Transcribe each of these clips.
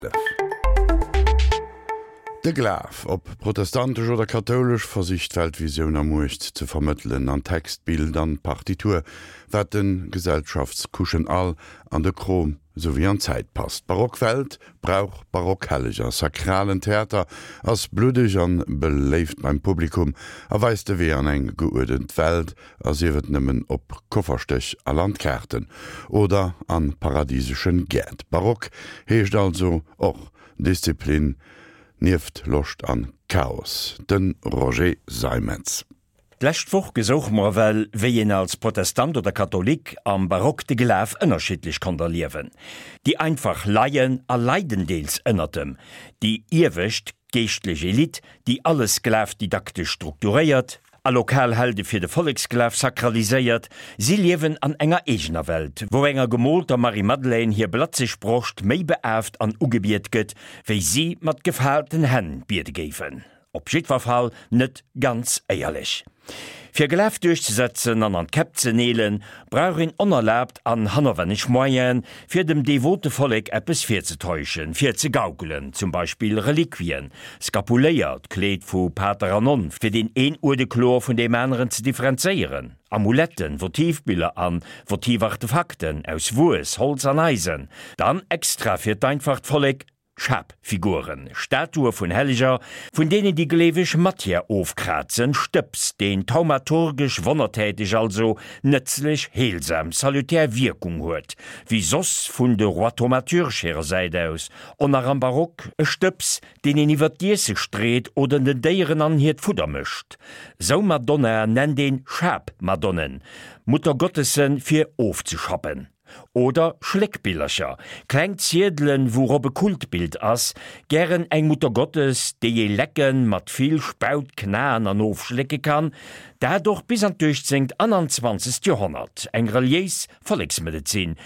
De Glaf, ob protestantesch oder kathoulesch, versicht d'Weltvisioun a Muecht ze vermëttelen, an Text, Bild an Partitur, wat de Gesellschaftscouchen all an de Krom souwéi an d'Zäit passt. D'barock Welt brauch barock Helleger. Sakralen Theater ass bluddeg an beléift beim Publikum a weist de Wee an eng geuerdent Welt, a sief et nëmmen op Kofferstéch a Landkaarten oder an paradiseschen Gäert. Barock heescht also och Disziplin nieft Loscht an Chaos. De Roger Seimetz. D'lescht Woch gesouche mer ewell, wéi een als Protestant oder Katholik am Barock de Glaf ënnerschiddlech konnt erliewen. Déi einfach leien a leiden deels ënnert em, déi iewescht geeschtlech Elite, déi alles glafdidaktesch strukturéiert, A lokal Helde fir de Volleksglaf sakraliséiert, si liewen an enger eegener Welt, wou enger gemoolter Marie-Madeleine hir blatzeg Broscht méi beaaft an ugebiet gëtt, wéi si mat gefaalten Hänn biede géifen. Op jiddwer Fall net ganz éierlech. Fir Glaf duerchzesetzen an an d'Käpp ze neelen, brauch een onerlaabt an hannerwenneg Moyenen, fir dem devote Vollek eppes virzetäuschen, virzegaukelen, zum Beispill Reliquien, Skapuléier, d'Kleed vu Pater an Nonn, fir deen een Uerde kloer vun deem aneren ze differenzéieren, Amuletten, Votivbiller an Votivartefakten aus Wues, Holz an Eisen, dann extra fir d'einfacht Vollek, Schapfiguren, Statue vun Helleger, vun deenen déi Gleeweg Matière ofkrazen, Stëbs, deen thaumaturgesch, wonnertäteg, also nëtzlech, heelsam, salutär Wierkung huet, wéi soss vun de Rois thaumaturges hirer Säit aus, on nach am Barock, e Stëbs, deen een iwwer d'Iesse street oder den Déieren an hiert Fudder mëscht. Sou Madonnaen nennt een Schapmadonnen, Muttergottessen, fir ofzeschappen. Oder Schléckbillercher, kleng Ziedelen, wourop e Kultbild ass, gären eng Muttergottes, déi ee lecken, mat vill Spaut knaen an ofschlécke kann, dat och bis an d'uechtzéngt an an zwanzegt Joerhonnert, eng reliéis Volleksmedezin,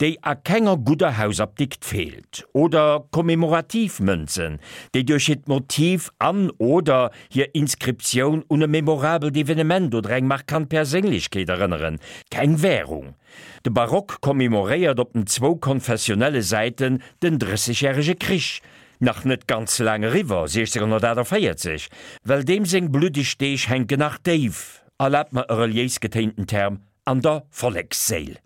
déi a kenger gudder Hausapdikt feelt. Oder kommemorativ Mënzen, déi duerch hiert Motiv an, oder hir Inskriptioun un e memorabelt Evenement oder eng markant Perséinlechkeet erënneren, keng Währung. De Barock commemoréiert op den zwou konfessionelle Säiten den Drëssegjärege Krich, nach net ganz laang eriwwer, 1648, well deem seng bluddeg Deeg hänken nach déif, erlaabt mer e reliéis getéinten Term, an der Volleksséil.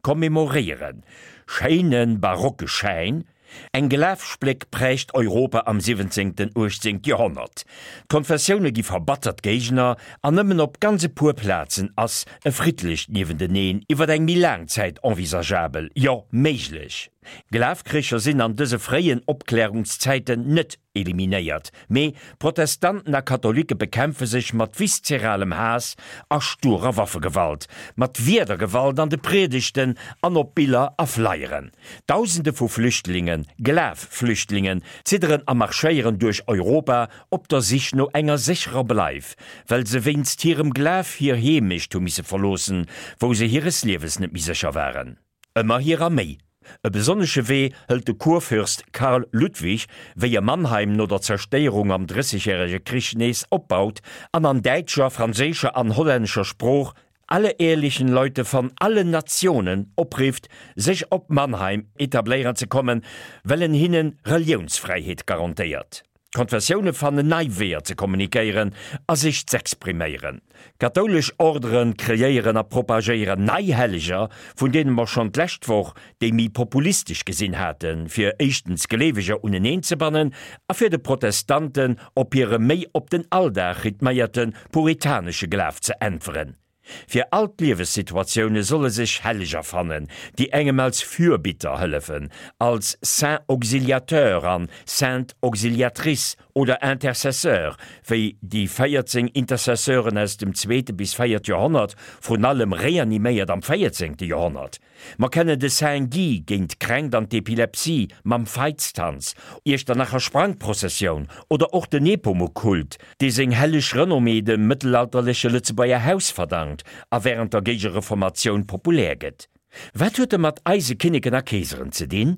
Commemoréieren, schéine barocke Schäin, Eng Glafspléck prägt Europa am siwwenzéngten, uechtzéngt Joerhonnert. D'Konfessioune gi verbattert Géigner an nëmmen op ganz e puer Plazen ass e friddlecht Niewenteneen iwwer eng méi laang Zäit envisageabel, jo méiglech. Glafkricher sinn an dëse fréien Opklärungszäiten net eliminéiert, mee Protestanten a Katholike bekämpfe sech mat viszeralem Haass a sturer Waffegewalt, mat Wierdergewalt an de Priedegten an op Biller a Flyeren. Dausende vu Flüchtlingen, Glaf-Flüchtlingen, zidderen a marschéieren duerch Europa op der Sich no enger sécherer Bleif, well se wéinst hirem Glaf hir Heemecht hu misse verloossen, wou se hires Liewes net méi sécher waren. Ëmmer hirer méi. E besonnesche Wee hëlt de Kurfürst Karl Ludwig, wéi e Mannheim no der Zerstéierung am Drëssegjärege Krich nees opbaut an an däitscher, franséischer an hollännescher Sprooch alle ehrlichen Leute von allen Nationen oprifft, sech op Mannheim etabléieren ze kommen, well en hinnen Reliounsfräiheet garantéiert. D'Konfessioune fannen nei Weeër ze kommunikéieren a sech z'expriméieren. Kathoulesch Ordere kreéieren a propagéieren nei Helleger, vun deene mer schonn d'lescht Woch déi méi populistesch gesinn haten, fir éischtens Gleeweger uneneen ze bannen a fir de Protestanten op hire méi op den Alldag rhythméierte puritanesche Glaf ze äntweren. Fir all d'Liewessituatioune solle sech Helleger fannen, déi engem als Fürbitter hëllefen, als Saint Auxiliateur an Sainte Auxiliatrice oder Intercesseur, wéi déi 14 Intercesseuren aus dem zweete bis véiert Joerhonnert, vrun allem reaniméiert am véierzéngte Joerhonnert. Mer kennen de Saint Guy géint d'Kränkt an d'Epilepsie mam Veitstanz, Iechternacher Sprangprozessioun oder och de Nepomuk-Kult, dee seng helleg Renommée dem mëttelalterleche Lëtzebuerger Haus verdankt a wärend der Géigereformatioun populär gëtt. Wat huet e mat eise Kinneken a Keeseren ze dinn?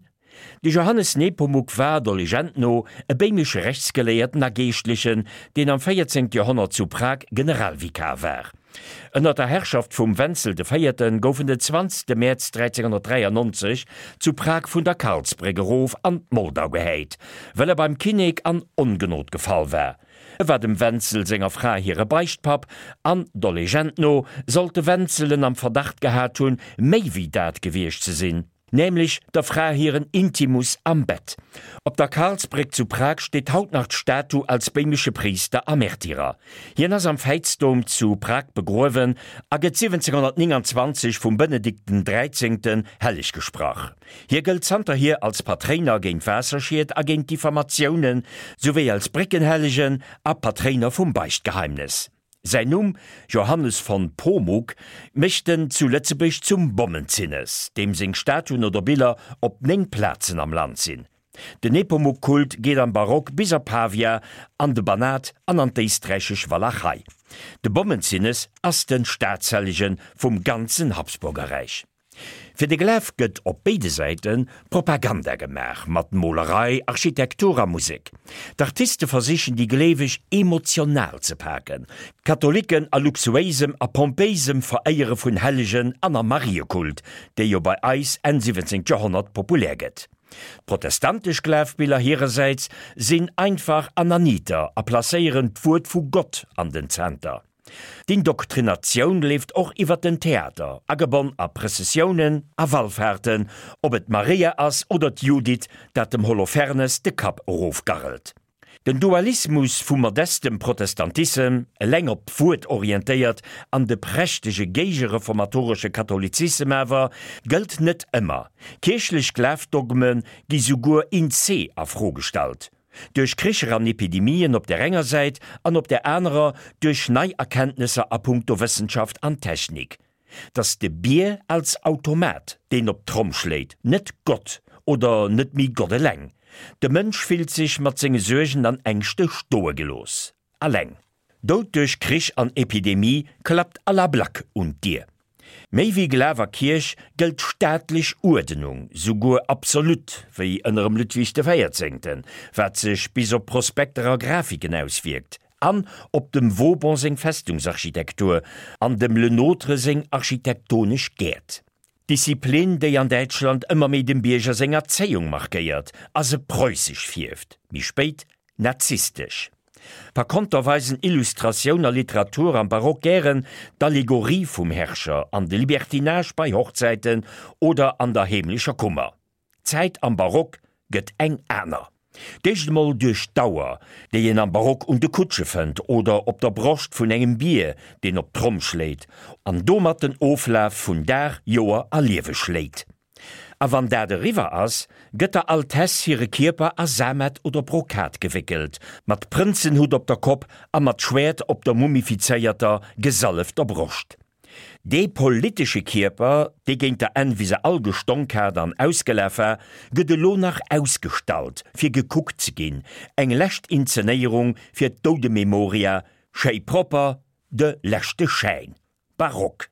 De Johannes Nepomuk war, der Legend no, e béimesche Rechtsgeléierten a Geeschtlechen, deen am 14. Joerhonnert zu Prag Generalvikar war. Ënner der Herrschaft vum Wenzel de Véierte gouf en den 20 Mäerz 1393 zu Prag vun der Karlsbréck erof an d'Moldau gehäit, well e beim Kinnek an Ongenod gefall war. E war dem Wenzel senger Fra hire Beichtpapp an, der Legend no, sollt de Wenzel en am Verdacht gehat hunn, méi wéi dat gewiescht ze sinn, nämlech der Fra hiren Intimus am Bett. Op der Karlsbréck zu Prag steet haut nach d'Statu als béimesche Priister a Märtyrer. Hien ass am Veitsdom zu Prag begruewen a gëtt 1729 vum Benedikt den Dräizéngten helleg gesprach. Hie gëllt zanterhier als Patréiner géint Waasserschied a géint Diffamatiounen, souwéi als Bréckenhellegen a Patréiner vum Beichtgeheimnes. Säin Numm, Johannes von Pomuk, mécht en zu Lëtzebuerg zum Bommenzinnes, deem seng Statuen oder Biller op 9 Plazen am Land sinn. Den Nepomuk-Kult geet am Barock bis a Pavia, an de Banat an an d'éisträichesch Walachei. De Bommenzinnes ass de Staatshellege vum ganzen Habsburgerräich. Fir de Glaf gëtt op béide Säite Propaganda gemaach, mat Molerei, Architektur a Musek. D'Artiste versichen déi Gleeweg emotional ze paken, d'Katholiken a luxuéisem a pompéisem Veréiere vun Hellegen an am Mariekult, dee jo bei eis Enn 17. Joerhonnert populär gëtt. D'protestantesch Glafbiller hirersäits sinn einfach an erniiter a placéieren d'Wuert vu Gott an den Zenter. D'Indoktrinatioun leeft och iwwert den Theater, agebonn a Prëssessiounen a Wallfahrten, ob et d'Maria ass oder d'Judith, dat dem Holofernes de Kapp erofgarrelt. Den Dualismus vum modestem Protestantissem, eleng op d'Wuert orientéiert, an de prächtege géigereformatoresche Katholizissem awer gëllt net ëmmer. Kierchlech Glafdogme gi souguer in se a Fro gestallt. Duerch Kricher an Epidemien op där enger Säit an op där anerer duerch nei Erkenntnesser a punkto Wëssenschaft an Technik. Dass de Bier als Automat, deen op d'Tromm schléit, net Gott oder net méi Gott eleng. De Mënsch fillt sech mat senge Suergen an Ängschte stoe gelooss. Alleng. Doud duerch Krich an Epidemie klappt à la Black un d'Dier. Méi wéi Glaf a Kierch gëllt staatlech Uerdenung, souguer absolut, wéi ënnerem Ludwig de Véierzéngten, wat sech bis op Prospekter a Grafiken auswierkt, an op dem Vauban seng Festungsarchitektur an dem Le Nôtre seng architektonesch Gäert. D'Disziplin, déi an Däitschland ëmmer méi dem Bierger seng Erzéiung markéiert a se preussesch fierft, méi spéit nazistesch. Par konter weisen Illustratioun a Literatur am Barock gären d'Allegorie vum Herrscher an de Libertinage bei Hochzäiten oder an der heemlecher Kummer. D'Zäit am Barock gëtt eng aner. D'éischt emol duerch d'Auer, déi een am Barock un de Kutsche fënnt oder op der Broscht vun engem Bier, deen op d'Tromm schléit an domat den Oflaf vun Dag, Joer a Liewe schléit. A wann dat eriwwer ass, gëtt der Altesse hire Kierper a Samet oder Brokat gewéckelt, mat Prënzenhutt op der Kopp a mat Schwäert op der mumifizéierter, gesallefter Broscht. Dee politesche Kierper, dee géint der Enn wéi se all gestonk hat an ausgelaf war, gëtt elo nach ausgestallt, fir gekuckt ze ginn, eng lescht Inzenéierung fir d'Doudememoria, schéi propper, de leschte Schäin. Barock.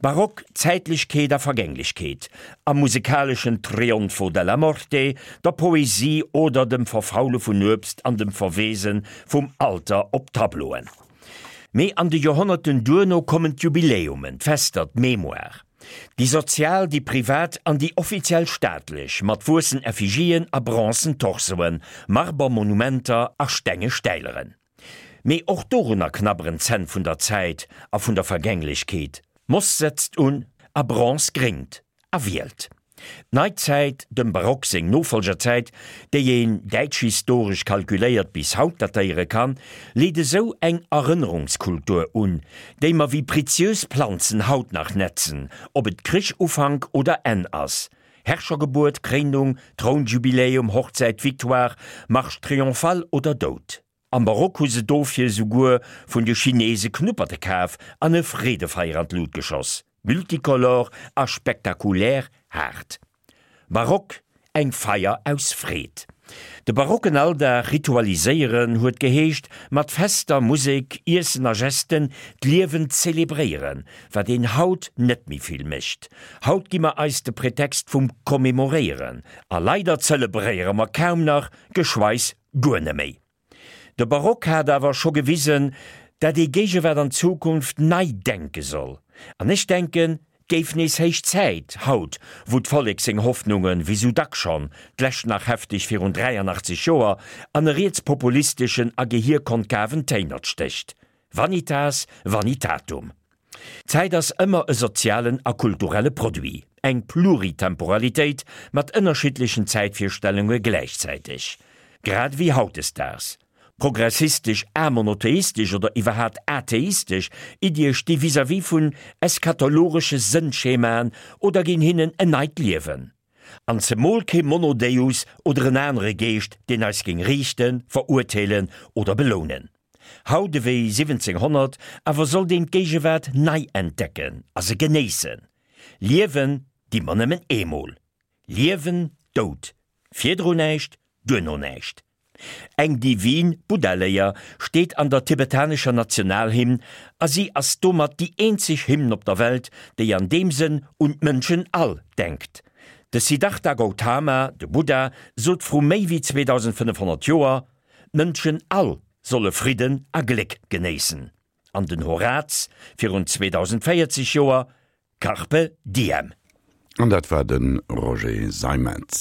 Barock Zäitlechkeet a Vergänglechkeet, am musekaleschen Trionfo della Morte, der Poesie oder dem Verfaule vun Uebst an dem Verweese vum Alter op Tableauen. Mee an de Joerhonnerten duerno kommen d'Jubiläumen, d'Fester, d'Mémoire. Déi sozial, déi privat an déi offiziell staatlech, mat wuessen Effigien a bronzen Torsoen, Marbermonumenter a stenge Stäileren. Mee och dorunner knabberen d'Zänn vun der Zäit a vun der Vergänglechkeet. Moss setzt un a Bronze gréngt. A wielt. D'Neizäit, dem Barock seng Nofolgerzäit, déi een däitschhistoresch kalkuléiert bis haut datéiere kann, leet esou eng Erënnerungskultur un, déi mer wéi preziös Planzen haut nach netzen, ob et Krichufank oder Enn ass, Herrschergebuert, Kréinung, Trounjubiläum, Hochzäit, Victoire, Marche triomphale oder Doud. Am Barock hu se dofir esouguer vun de Chinese Knupperte kaf an e Freedefeier an d'Lut geschoss. Multicolor a spektakulär haart. Barock, eng Feier aus Freed. De barocken Alldag ritualiséieren huet geheescht, mat Fester, Musek, Iessen a Gesten d'Liewen zelebréieren, wat een haut net méi vill mécht. Haut gi mer eis de Pretext vum Commemoréieren a leider zelebréiere mer kaum nach, geschweis guer neméi. De Barock hat awer scho gewisen, Dat ee Géigewaart an Zukunft nei denke soll. An ech denken, 't géif nees héich Zäit, haut, wou d'Vollek seng Hoffnungen, wéi sou dack schonn, d'lescht nach hefteg virun 83 Joer, an e rietspopulisteschen a gehierkonkaven Téinert stécht. Vanitas vanitatum. D'Zäit ass ëmmer e sozialen a kulturelle Produit, eng Pluritemporalitéit mat ënnerschiddlechen Zäitvirstellunge gläichzäiteg. Grad ewéi hautdesdaags. Progressistesch, amonotheistesch oder iwwerhaat atheistesch Iddie sti vis-à-vis vun eschatologesche Sënnschemaen oder ginn hinnen en neit Liewen. An zemol kee Monodeus oder en anere Geescht, deen eis géing riichten, verurteelen oder belounen. Haut ewéi 1700 awer sollt een d'Géigewaart nei entdecken a se genéissen. Liewen di mer nëmmen eemol. Liewen, Doud. Virdru näischt, duerno näischt. Eng divin Buddha-Léier steet an der tibetanescher Nationalhymn a si ass domat déi eenzeg Hymn op der Welt, déi an deem Sënn un d'Mënschen all denkt. De Siddhartha Gautama, de Buddha, sot vru méi wéi 2500 Joer, d'Mënschen all solle Fridden a Gléck genéissen. An den Horaz virun 2040 Joer, Carpe diem. An dat war de Roger Seimetz.